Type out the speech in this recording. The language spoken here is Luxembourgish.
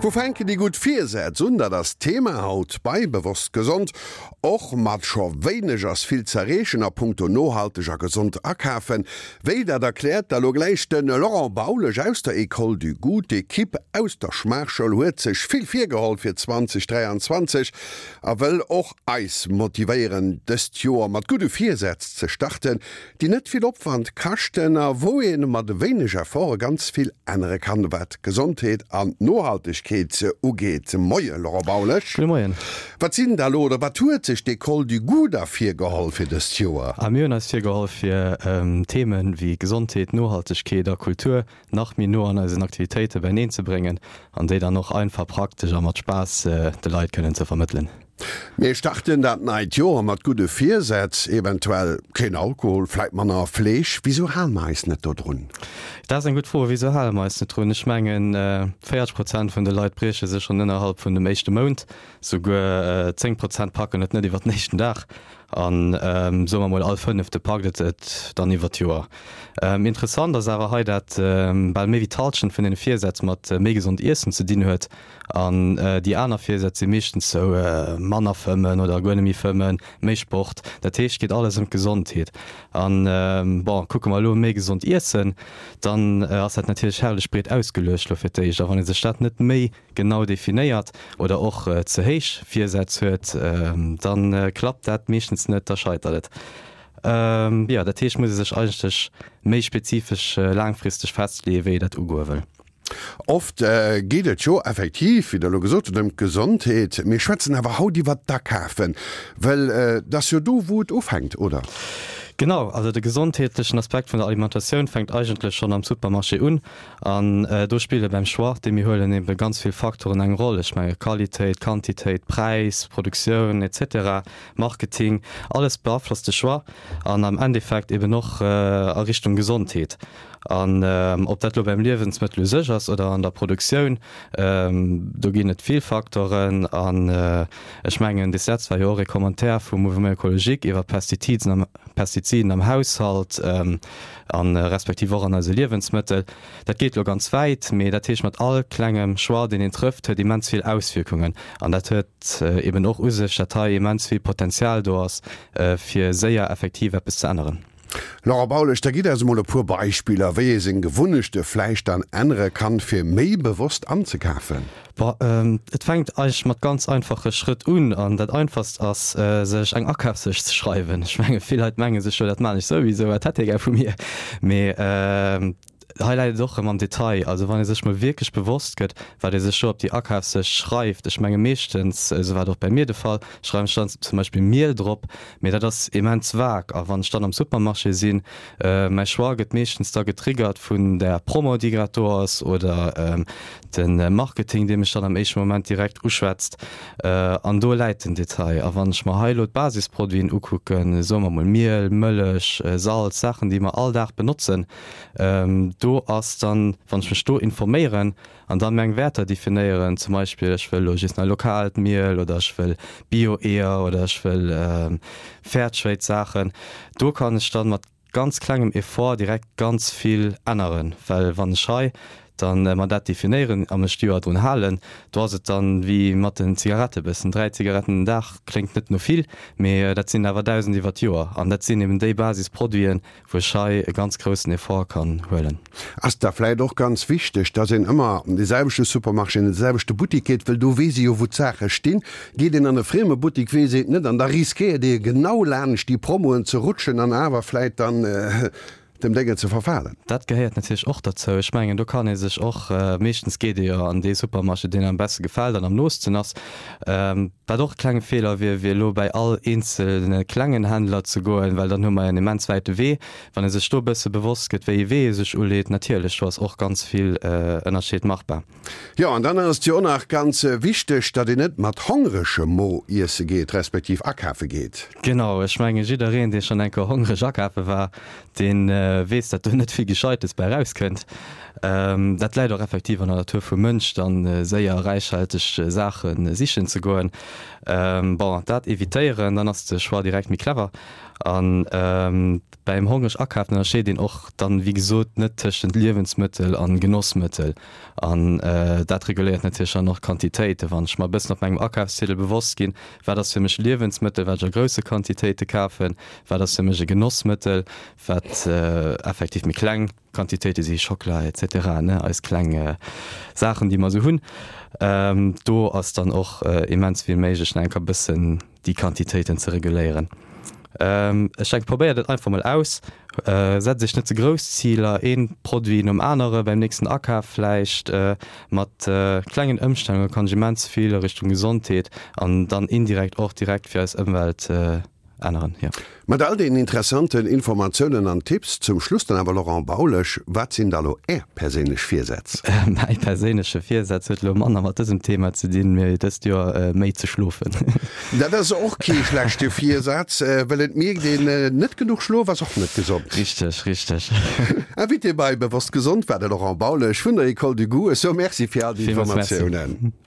Wou fänken déi gutt Virsätz un? Dat ass d'Thema haut bei Bewosst Gesond. Och mat scho wéineg ass vill z'erreechen a punkto nohalteg a gesond akafen. Wéi, dat erkläert da lo gläich de Laurent Baulesch aus der École du Goût. D'Ekipp aus der Schmaachschoul huet sech vill virgeholl fir 2023 a wëll och eis motivéieren, dëst Joer mat gudde Virsätz ze starten, déi net vill Opwand kaschten a wou ee mat e wéineg Efforte ganz vill ännere kann, wat d'Gesondheet an d'Nohaltegkeet ugeet. Moie Laurent Baulesch. Gudde Moien. Wat sinn da lo, oder wat huet sech d'École du Goût da virgeholl fir dëst Joer? A mir hunn eis virgeholl fir Themen wéi Gesondheet, Nohaltegkeet a Kultur nach méi no an eisen Aktivitéite beineen ze bréngen an déi dann och einfach, praktesch a mat Spaass de Leit kënnen ze vermëttelen. Mir starten dat neit Joer mat gudde Virsätz, eventuell keen Alkohol, vläit manner Fleesch. Wisou hale mer eis net dodrun? Dat ass eng gutt Fro. Wisou hale mer eis net drun? Ech mengen, 40 Prozent vun de Leit brieche sech schonn ënnerhalb vun dem éischte Mount. Souguer 10 Prozent packen et net iwwer den éischten Dag. An soe mer mol, all Fënnefte packt et dann iwwer d'Joer. Interessant ass awer hei, dat bal méi wéi d'Hallschent vun deene Virsätz mat méi gesond Iessen ze dinn huet. An déi aner Virsätz si meeschtens sou, manner fëmmen oder guer net méi fëmmen, méi Sport. Dat heescht, et geet alles ëm d'Gesondheet. An bon, kucke mer elo méi gesond iessen, dann ass dat natierlech herrlech breet ausgeluecht elo fir d'éischt. A wann ee sech dat net méi genau definéiert oder och ze héich Virsätz huet, da klappt dat meeschtens net, da scheitert et. Jo, dat heescht, muss ee sech eigentlech méi spezifesch laangfristeg festleeën, wéi ee dat ugoe wëll. Oft geet et jo effektiv, wéi Der elo gesot hutt, ëm d'Gesondheet. Mir schwätzen awer haut iwwert d'Akafen, well et ass jo do, wou et ufänkt, oder? Genau, also de gesondheetlechen Aspekt vun der Alimentatioun fänkt eigentlech schonn am Supermarché un. An do spille beim Choix, dee mir huelen, ebe ganz vill Faktoren eng Roll. Ech menge Qualitéit, Quantitéit, Präis, Produktioun et cetera, Marketing, alles beaflosst de Choix an am Endeffekt eben och a Richtung Gesondheet. An ob dat elo beim Liewensmëttel u sech ass oder an der Produktioun, do ginn et vill Faktoren. An ech mengen, des Letzt war jo och ee Commentaire vum Mouvement Ecologique iwwer Pestiziden am, Pestiziden am Haushalt a respektiv och an eise Liewensmëttel. Dat geet elo ganz wäit, mee dat heescht, mat all klengem Choix, deen een trëfft, huet immens vill Auswierkungen. An dat huet eben och u sech, dat hei immens vill Potenzial do ass, fir séier effektiv eppes ze änneren. Laurent Baulesch, da gitt eis emol e puer Beispiller, wéi ee seng Gewunnechte vläicht dann ännere kann, fir méi bewosst anzekafen. Bon, et fänkt eigentlech mat ganz einfache Schrëtt un. An dat einfachst ass, sech eng Akafslëscht ze schreiwen. Ech menge vill Leit menge sech jo, dat maan ech souwisou, wat hätt hie gär vu mir? Mee hei läit et och erëm am Detail. Also wann ee sech mol wierklech bewosst gëtt, wat ee sech do op déi Akafslëscht schreift, ech menge meeschtens, esou war et och bäi mir de Fall, schreiwen ech dann zum Beispill Miel drop, Mee dat ass immens vag. A wann ech dann am Supermarché sinn, mäi Choix gëtt meeschtens da getriggert vun der Promo, déi grad do ass, oder de Marketing, dee mech dann am éischte Moment direkt uschwätzt. An do läit den Detail. A wann ech mer hei elo d'Basisproduiten ukucken, soe mer mol Miel, Mëllech, Salz, Saachen, déi mer all Dag benotzen, do ass dann, wann ech mech do informéieren, An dann meng Wäerter definéieren, zum Beispill ech wëll elo just nach lokaalt Miel oder ech wëll Bio-Eeër oder ech wëll Fairtrade Saachen. Do kann ech dann mat ganz klengem Effort direkt ganz vill änneren, well wann ech hei dann mer dat definéieren a mech d'Joer drun halen, do ass et dann wéi mat den Zigarette bëssen, 3 Zigaretten den Dag kléngt net no vill, mee dat sinn awer 1.000 iwwer d'Joer an dat sinn eben déi Basisproduiten, wou ech hei e ganz groussen Effort kann huelen. Ass da vläit och ganz wichteg, dass een ëmmer an dee selwechte Supermarché, an dee selwechte Buttik geet, wëll do weess ee jo, wou d'Saache stinn. Geet een an e frieme Buttik, weess een et net an da riskéiert ee genau laanscht déi Promoen ze rutschen an awer vläit dann dem Déngen ze verfalen. Dat gehéiert natierlech och derzou. Ech mengen, do kann ee sech och, meeschtens geet ee jo an dee Supermarché, deen am beste gefält an am noosten ass. Wat och e klenge Feeler wier, wier elo bäi all eenzelne klengen Händler ze goen, well dann hu mer en immens wäite Wee. Wann ee sech do e bësse bewosst gëtt, wéi ee Wee ee sech uleet, natierlech, do ass och ganz vill Ënnerscheed machbar. Jo, an dann ass et jo och nach ganz wichteg, datt een net mat hongeregem Mo iesse geet, respektiv akafe geet. Genau, ech menge jiddereen, dee schonn eng Kéier hongreg akafe war, dee weess, datt do net vill Gescheites bäi erauskënnt. Dat läit och effektiv an der Natur vum Mënsch, dann séier räichhalteg Saache sichen ze goen. Bon, dat evitéieren, dann ass de Choix direkt méi clever. An beim hongreg akafen ënnerscheet een och dann, wéi gesot, net tëschent Liewensmëttel an Genossmëttel. An dat reguléiert natierlech dann och d'Quantitéiten. Wann ech mer e bëssen op mengem Akafsziedel bewosst ginn, wat ass fir mech Liewensmëttel, wat ech a grousse Quantitéite kafen, wat ass fir mech e Genossmëttel, wat effektiv méi kleng Quantitéite si, Schockela etc, ne, eis kleng Saachen, déi mer esou hunn. Do ass dann och immens vill méiglech, nach eng Kéier e bëssen déi Quantitéiten ze reguléieren. Ech denken, probéiert et einfach mol aus. Setzt iech net ze grouss Ziler, ee Produit nom anere beim nächsten Akaf vläicht. Mat klengen Ëmstellunge kann ech immens vill a Richtung Gesondheet an dann indirekt och direkt fir eis Ëmwelt änneren, jo. Mat all deenen interessanten Informatiounen an Tipps zum Schluss dann awer, Laurent Baulesch, wat sinn da lo Är perséinlech Virsätz? Mäi perséinleche Virsaz huet elo manner mat dësem Thema ze dinn, mee dëst Joer méi ze schlofen. Dat ass och kee schlechte Virsaz, well et mierkt een, net genuch Schlof ass och net gesond. Richteg, richteg. Invité bei Bewosst Gesond war de Laurent Baulesch vun der Ecole du Goût. Ech soe Merci fir all déi Informatiounen.